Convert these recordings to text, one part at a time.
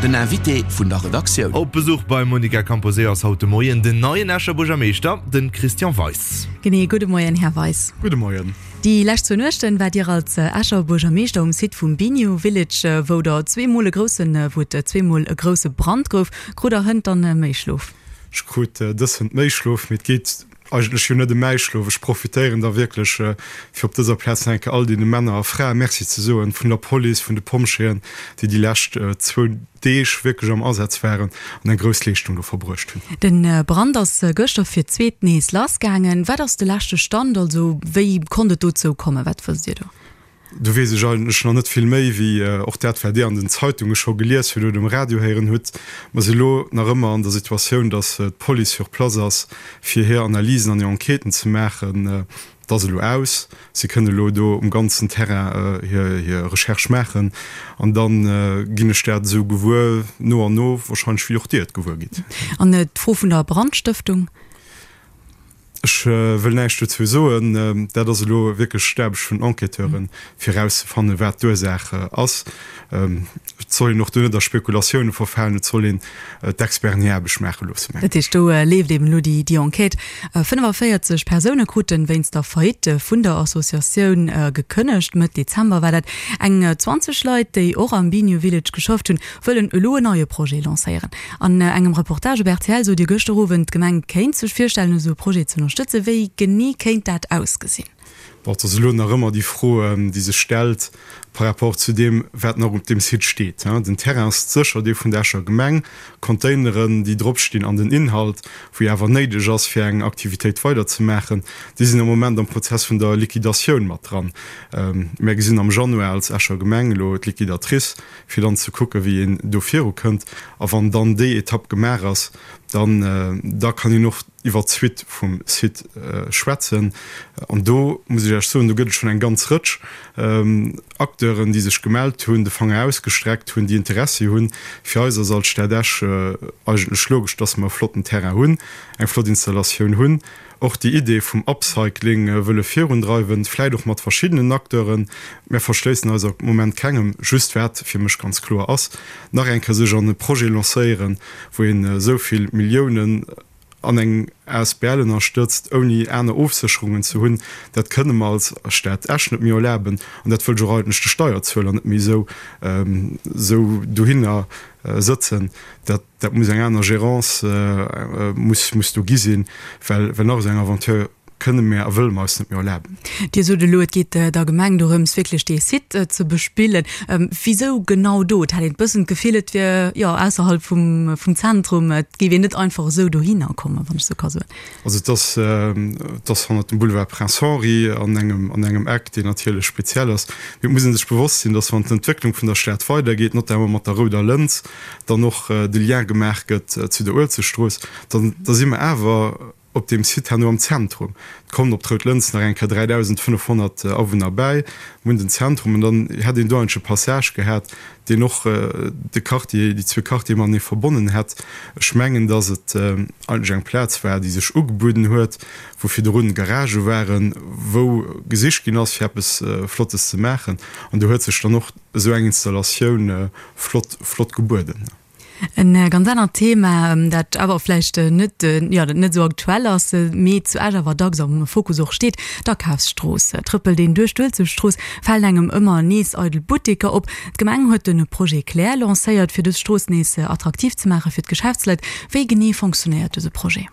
Den Invité vun der Redaktioun. Op Besuch beim Monica Camposeo ass haut de Moien den neien Escher Buergermeeschter, de Christian Weis. Genee, gudde Moien, Här Weis. Gudde Moien. Déi lescht zwou Nuechten waart Dir als Escher Buergermeeschter um Site vum Biniou Village, wou der zweemol e groussen, wou et zweemol e grousse Brand gouf. Krut der hënt dann méi Schlof? Ech krut dës hënt méi Schlof, mee et geet eigentlech jo net ëm mäi Schlof. Ech profitéieren da wierklech, fir op dëser Plaz nach eng Kéier all deene Männer a Frae Merci ze soen, vun der Police, vun de Pompjeeën, déi déi lescht zwou Deeg wierklech am Asaz waren an eng grouss Leeschtung do verbruecht hunn. De Brand ass gëschter fir d'zweet nees lassgaangen. Wat ass de leschte Stand? Also wéi konnt et dozou kommen? Wat wësst Dir do? Do weess ech eigentlech nach net vill méi wéi och dat, wat Dir an den Zeitunge scho gelies hutt oder um Radio héieren hutt. Mer si elo nach ëmmer an der Situatioun, datt d'Police sur place ass, fir hir Analysen an hir Enquêten ze maachen. Et ass elo aus. Si kënnen elo do um ganzen Terrain hir Recherche maachen. An da ginn ech dat esou gewuer, no an no, wahrscheinlech wéi och Dir et gewuer gitt. An d'Fro vun der Brandstëftung? Ech wëll näischt dozou soen. Dat ass elo wierklech d'Aarbecht vun den Enquêteuren, fir erauszefannen, wat d'Ursaach ass. Et soll een och do net a Spekulatioune verfalen. Et soll een d'Experten hir Aarbecht maache loossen, mengen ech. Dat heescht, do leeft eben elo déi Enquête. 45 Persoune kruten wéinst der Faillite vun der Associatioun gekënnegt. Mëtt Dezember war dat. Eng 20 Leit, déi och am Biniou Village geschafft hunn, wëllen elo en neie Projet lancéieren. An engem Reportage op rtl sot Dir gëschter Owend, d'Gemeng kéint sech virstellen, esou e Projet ze ënnerstëtzen. Wéi genee kéint dat ausgesinn? Bon, et ass elo nach ëmmer déi Fro, déi sech stellt par rapport zu deem, wat nach op deem Site steet. Den Terrain ass sécher dee vun der Escher Gemeng, d'Containeren, déi dropstinn an den Inhalt, wou jo awer néideg ass, fir eng Aktivitéit weiderzemaachen, déi sinn am Moment am Prozess vun der Liquidatioun mat dran. Mär gesinn am Januar als Escher Gemeng elo d'Liquidatrice, fir dann ze kucken, wéi een do virukënnt. A wann dann déi Etapp gemaach ass, dann, da kann een och iwwert d'Suite vum Site schwätzen. An do muss ech Iech soen, do gëtt et schonn eng ganz Rëtsch Acteuren, déi sech gemellt hunn, de Fanger ausgestreckt hunn, déi Interessi hunn. Fir eis ass als Stad Esch eigentlech logesch, dass mer e flotten Terrain hunn, eng flott Installatioun hunn, och déi Idee vum Upcycling wëlle virundreiwen, vläit och mat verschiddenen Acteuren. Mär verschléissen eis am Moment kengem. Just wat fir mech ganz kloer ass, nach eng Kéier sech an e Projet lancéieren, wou een esou vill Milliounen an eng asbl ënnerstëtzt, ouni aner Ofsécherungen ze hunn, dat kënne mer als Stad Esch net méi erlaben an dat wëll ech och eigentlech de Steierzueler net méi esou dohinner sëtzen. Dat. Dat muss eng aner Gérance muss muss do gi sinn, well well nach esou eng Aventure kënne mär a wëlle mer eis net méi erlaben. Dir sot elo, et geet der Gemeng dorëms, wierklech dee Site ze bespillen. Wisou genau do? Et hat een e bëssen d'Gefill, et wier, jo, ausserhalb vum vum Zentrum. Et géif een net einfach esou dohinner kommen, wann ech esou ka soen. Also et ass, et ass hannert dem Boulevard Prince Henri an engem, an engem Eck, deen natierlech speziell ass. Mee et muss ee sech bewosst sinn, dass wann d'Entwécklung vun der Stad weidergeet, notamment mat der Rouder Lëns, dann och de Lien gemaach gëtt zu der Uelzechtstrooss, dann da si mer awer op deem Site herno am Zentrum. Et kommen op d'Rout Lëns nach eng Kéier 3.500 Awunner bäi, mir hunn den Zentrum an dann hätt een do eigentlech e Passage gehat, deen och de Quartier, déi zwee Quartiere matenee verbonnen hätt. Ech mengen, dass et eigentlech eng Plaz war, déi sech ugebueden huet, wou virdrun Garagë waren, wou gesicht ginn ass, fir eppes Flottes ze maachen. An do huet sech dann och esou eng Installatioun flott, flott gebueden. En ganz anert Thema, dat awer vläicht net, jo, dat net esou aktuell ass, mee zu Esch awer dacks am Fokus och steet, d'Akafsstrooss. Trëppelt een duerch d'Uelzechtstrooss, falen engem ëmmer nees eidel Butteker op. D'Gemeng huet de Projet Claire lancéiert, fir dës Strooss nees attraktiv ze maache fir d'Geschäftsleit. Wéi genee fonctionéiert dëse Projet?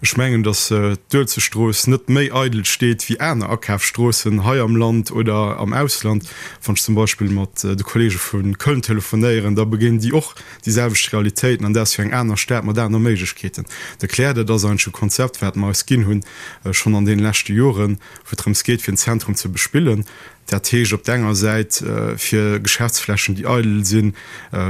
Ech mengen, datt d'Uelzechtstrooss net méi eidel steet wéi aner Akafsstroossen hei am Land oder am Ausland. Wann ech zum Beispill mat de Kollege vu Köln telefonéieren, da begéinen déi och déi selwecht Realitéiten, an dat ass jo eng aner Stad mat aner Méiglechkeeten. De Claire, dat ass eigentlech e Konzept, wat mer eis ginn hunn, schonn an deene leschte Joren, wou et drëms geet, fir en Zentrum ze bespillen. Dat heescht op der enger Säit, fir Geschäftsflächen, déi eidel sinn,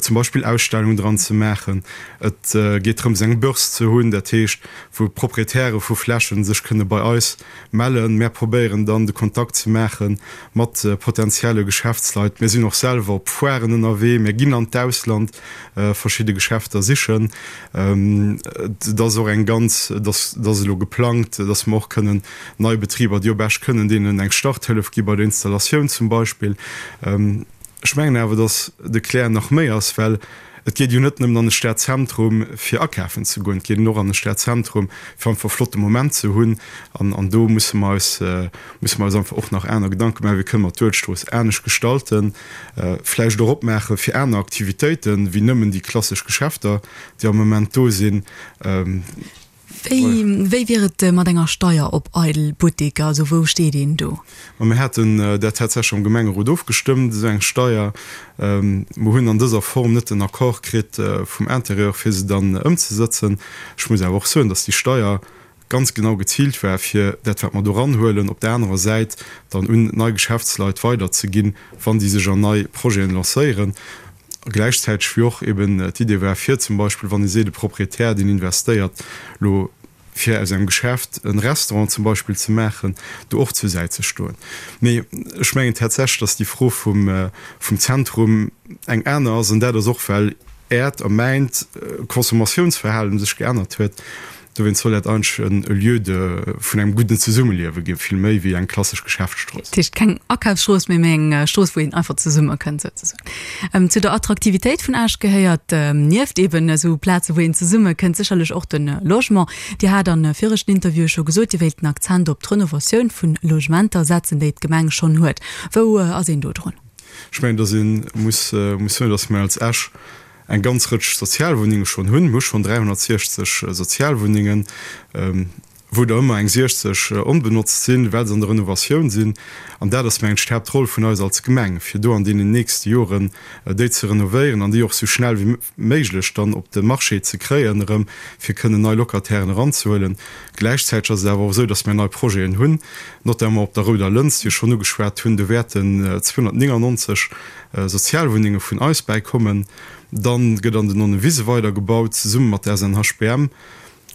zum Beispill Ausstellungen dran ze maachen. Et geet drëms, eng Börse ze hunn, dat heescht, wou Proprietäre vu Flächen sech kënne bei eis mellen. Mär probéieren dann, de Kontakt ze maache mat potenzielle Geschäftsleit. Mir sinn och selwer op Foiren ënnerwee, mir ginn an d'Ausland verschidde Geschäfter sichen. Et ass och eng ganz, et ass elo geplangt, dass mer och kënnen nei Betriber, déi op Esch kënnen, deenen eng Starthëllef gi bei der Installatioun zum Beispill. Ech mengen awer, dass de Claire nach méi ass, well. Et geet jo net nëmmen an de Stadzentrum fir akafen ze goen, et geet een och an de Stadzentrum fir einfach e flotte Moment ze hunn. An, an do musse mer eis, musse mer eis einfach och nach aner Gedanke maachen, wéi kënne mer d'Uelzechtstrooss anescht gestalten, vläicht och opmaache fir aner Aktivitéiten, wéi nëmmen déi klassesch Geschäfter, déi am Moment do sinn. Wéi, wéi wier et mat enger Steier op eidel Butteker? Also wou steet een do? Ma mir haten dat tatsächlech am Gemengerot ofgestëmmt, esou eng Steier. Mer hunn an dëser Form net den Accord kritt vum Intérieur, fir se dann ëmzesëtzen. Ech muss awer och soen, datt déi Steier ganz genau geziilt war, fir dat, wat mer do eranhuelen, op der anerer Säit dann un nei Geschäftsleit weiderzeginn, wann déi sech an nei Projeten lancéieren. A gläichzäiteg wéi och eben d'Idee war, fir zum Beispill, wann ee seet, e Proprietär, deen investéiert elo, fir aus engem Geschäft e Restaurant zum Beispill ze maachen, do och zur Säit ze stoen. Mee ech mengen tatsächlech, dass déi Fro vum Zentrum eng aner ass, an dat ass och, well Äert a mäint Consommatiounsverhalen sech geännert huet. Dowéinst soll dat eigentlech en Lieu de vun engem gudden Zesummeliewe ginn, vill méi wéi eng klassesch Geschäftsstrooss. Dat heescht keng Akafsstrooss méi, mee eng Strooss, wou een einfach zesummekënnt souzesoen. Zu der Attraktivitéit vun Esch gehéiert nieft eben esou Plaze wou een zesummekënnt sécherlech och de Logement. Dir hat a viregten Interviewe scho gesot, Dir wéilt den Akzent op d'Renovatioun vu Logementer setzen, déi d'Gemeng schonn huet. Wou ass een do drun? Ech mengen, datt ee muss soen, datt mir als Esch eng ganz Rëtsch Sozialwunnenge schonn hunn. Mir hu schonn 360 Sozialwunnengen, wou der ëmmer eng 60 onbenotzt sinn, well se an der Renovatioun sinn. An dat ass, mengen ech, d'Haaptroll vun eis als Gemeng, fir do an deenen nächste Joren déi ze renovéieren an déi och esou schnell wéi méiglech dann op de Marché ze kréien erëm, fir kënnen nei Locatairen eranzehuelen. Gläichzäiteg ass et awer och esou, dass mir nei Projeten hunn, notamment op der Rouder Lëns, déi ech schonn ugeschwat hunn. Do wäerten 299 Sozialwunnenge vun eis bäikommen. Dann gëtt an den Nonnewise weidergebaut, zesumme mat der SNHBM,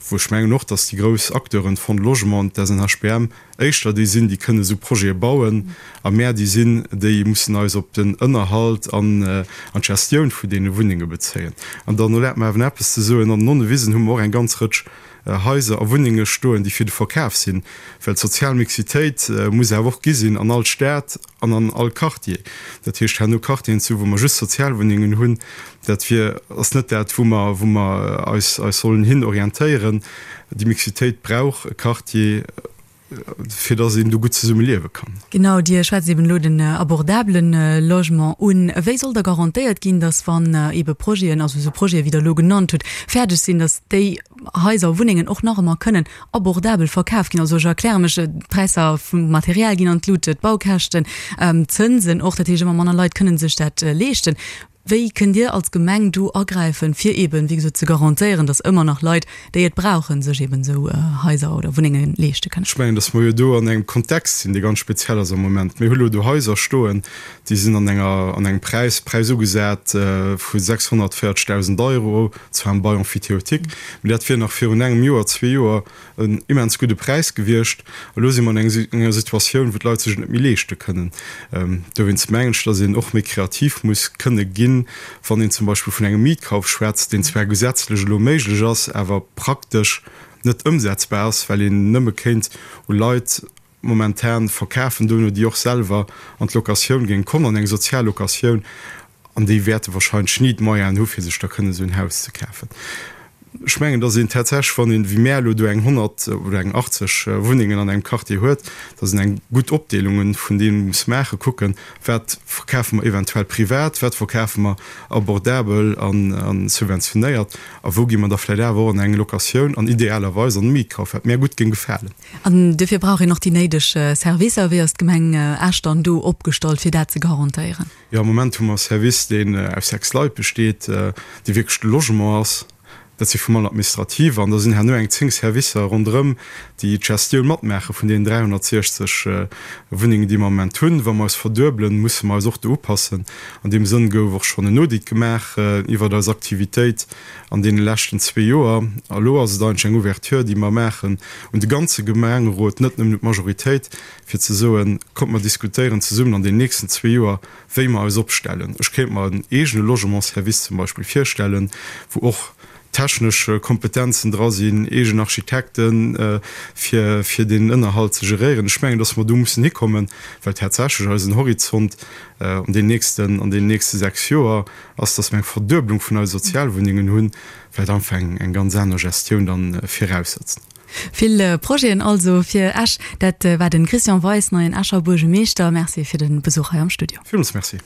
wou ech mengen och, dass déi grouss Acteuren, d'Fonds de Logement an d'SNHBM, éischter déi sinn, déi kënnen esou Projete bauen, a mär déi sinn, déi mussen eis op den Ënnerhalt an an d'Gestioun vun deene Wunnenge bezéien. An dann erlaabt mer awer nach eppes ze soen, An den Nonnewisen hu mer och eng ganz Rëtsch Haiser a Wunnenge stoen, déi fir de Verkaf sinn, well d'sozial Mixitéit muss awer och gi sinn an all Stad an an all Quartier. Dat heescht, herno Quartieren ze hu wou mer just Sozialwunnengen hunn, dat wier, ass net dat, wou mer, wou mer eis, eis sollen hin orientéieren. Déi Mixitéit brauch e Quartier, fir dass een do gutt zesumme liewe kann. Genau, Dir schwätzt eben elo den abordabele Logement un. Wéi soll da garantéiert ginn, dass wann ebe Projeten, also esou Projete wéi Der elo genannt hutt, fäerdeg sinn, dass déi Haiser a Wunnengen och nach ëmmer kënnen abordabel verkaf ginn? Also ech erkläre mech, d'Präisser vum Material ginn an d'Lut, d'Baukäschten, d'Zënsen och, dat heescht ëmmer manner Leit kënnen sech dat leeschten. Wéi kënnt Dir als Gemeng do agräifen, fir eeben, wéi gesot, ze garantéieren, datt ëmmer nach Leit, déi et brauchen, sech eeben esou Haiser oder Wunnenge leeschte kënnen? Ech mengen, datt mer jo do an engem Kontext sinn, dee ganz speziell ass am Moment. Mir hu lo do Haiser stoen, déi sinn an enger, an engem Präis, Präis ugesat vu 640.000 Euro, zwar am Bail emphytéotique, mee dat wier nach virun engem Joer, zwee Joer en immens gudde Präis gewiescht. Elo si mer an enger Situatioun, wou d'Leit sech et net méi leeschte kënnen. Dowéinst mengen ech, datt een och méi kreativ muss kënne ginn, wann een zum Beispill vun engem Mietkauf schwätzt, deen zwar gesetzlech elo méiglech ass, awer praktesch net ëmsetzbar ass, well een nëmme kéint u Leit momentan verkafen dono, déi och selwer an d'Locatioun géinge kommen, an eng sozial Locatioun, an déi wäerte wahrscheinlech ni d'Moyenen hu fir sech da kënnen esou en Haus ze kafen. Ech mengen, datt een tatsächlech, wann een, wéi mär elo do eng 100 oder eng 80 Wunnengen an engem Quartier huet, datt een eng gutt Opdeelunge vun deem muss maachen, kucken, wat verkafe mer eventuell privat, wat verkafe mer abordabel a subventionéiert a wou gi mer da vläicht awer och an eng Locatioun an idealerweis an e Mietkauf, wat mär gutt géing gefalen. An duerfir brauch een och déi néideg Servicer. Wéi ass d'Gemeng Esch dann do opgestallt, fir dat ze garantéieren? Jo, am Moment hu mer e Service, deen aus 6 Leit besteet, dee wierklech de Logement ass. Dat si vum Administrative an da sinn herno eng 10 Servicer ronderëm, déi d'Gestioun matmaache vun deenen 360 Wunnengen, déi mer am Moment hunn. Wa mer eis verduebelen, musse mer eis och do upassen. An deem Sënn gouf och schonn en Audit gemaach iwwert eis Aktivitéit an deene leschten zwee Joer. A lo ass et eigentlech eng Ouverture, déi mer maachen un de ganze Gemengerot, net nëmmen un d'Majoritéit, fir ze soen, Kommt mer diskutéieren zesummen an den nächsten zwee Joer, wéi mer eis opstellen. Ech kéint mer en eegene Logementsservice zum Beispill virstellen, wou och. technesch Kompetenzen dra sinn, eegen Architekten, fir, fir deen Ënnerhalt ze geréieren. Ech mengen, dass mer do mussen hikommen, well tatsächlech eisen Horizont an den nächsten, an den nächste 6 Joer ass, dass mer eng Verdueblung vun eise Sozialwunnengen hunn, wat einfach eng, eng ganz aner Gestioun dann viraussetzt. Vill Projeten also fir Esch. Dat war de Christian Weis, neien Escher Buergemeeschter. Merci fir de Besuch hei am Studio. Villmools Merci.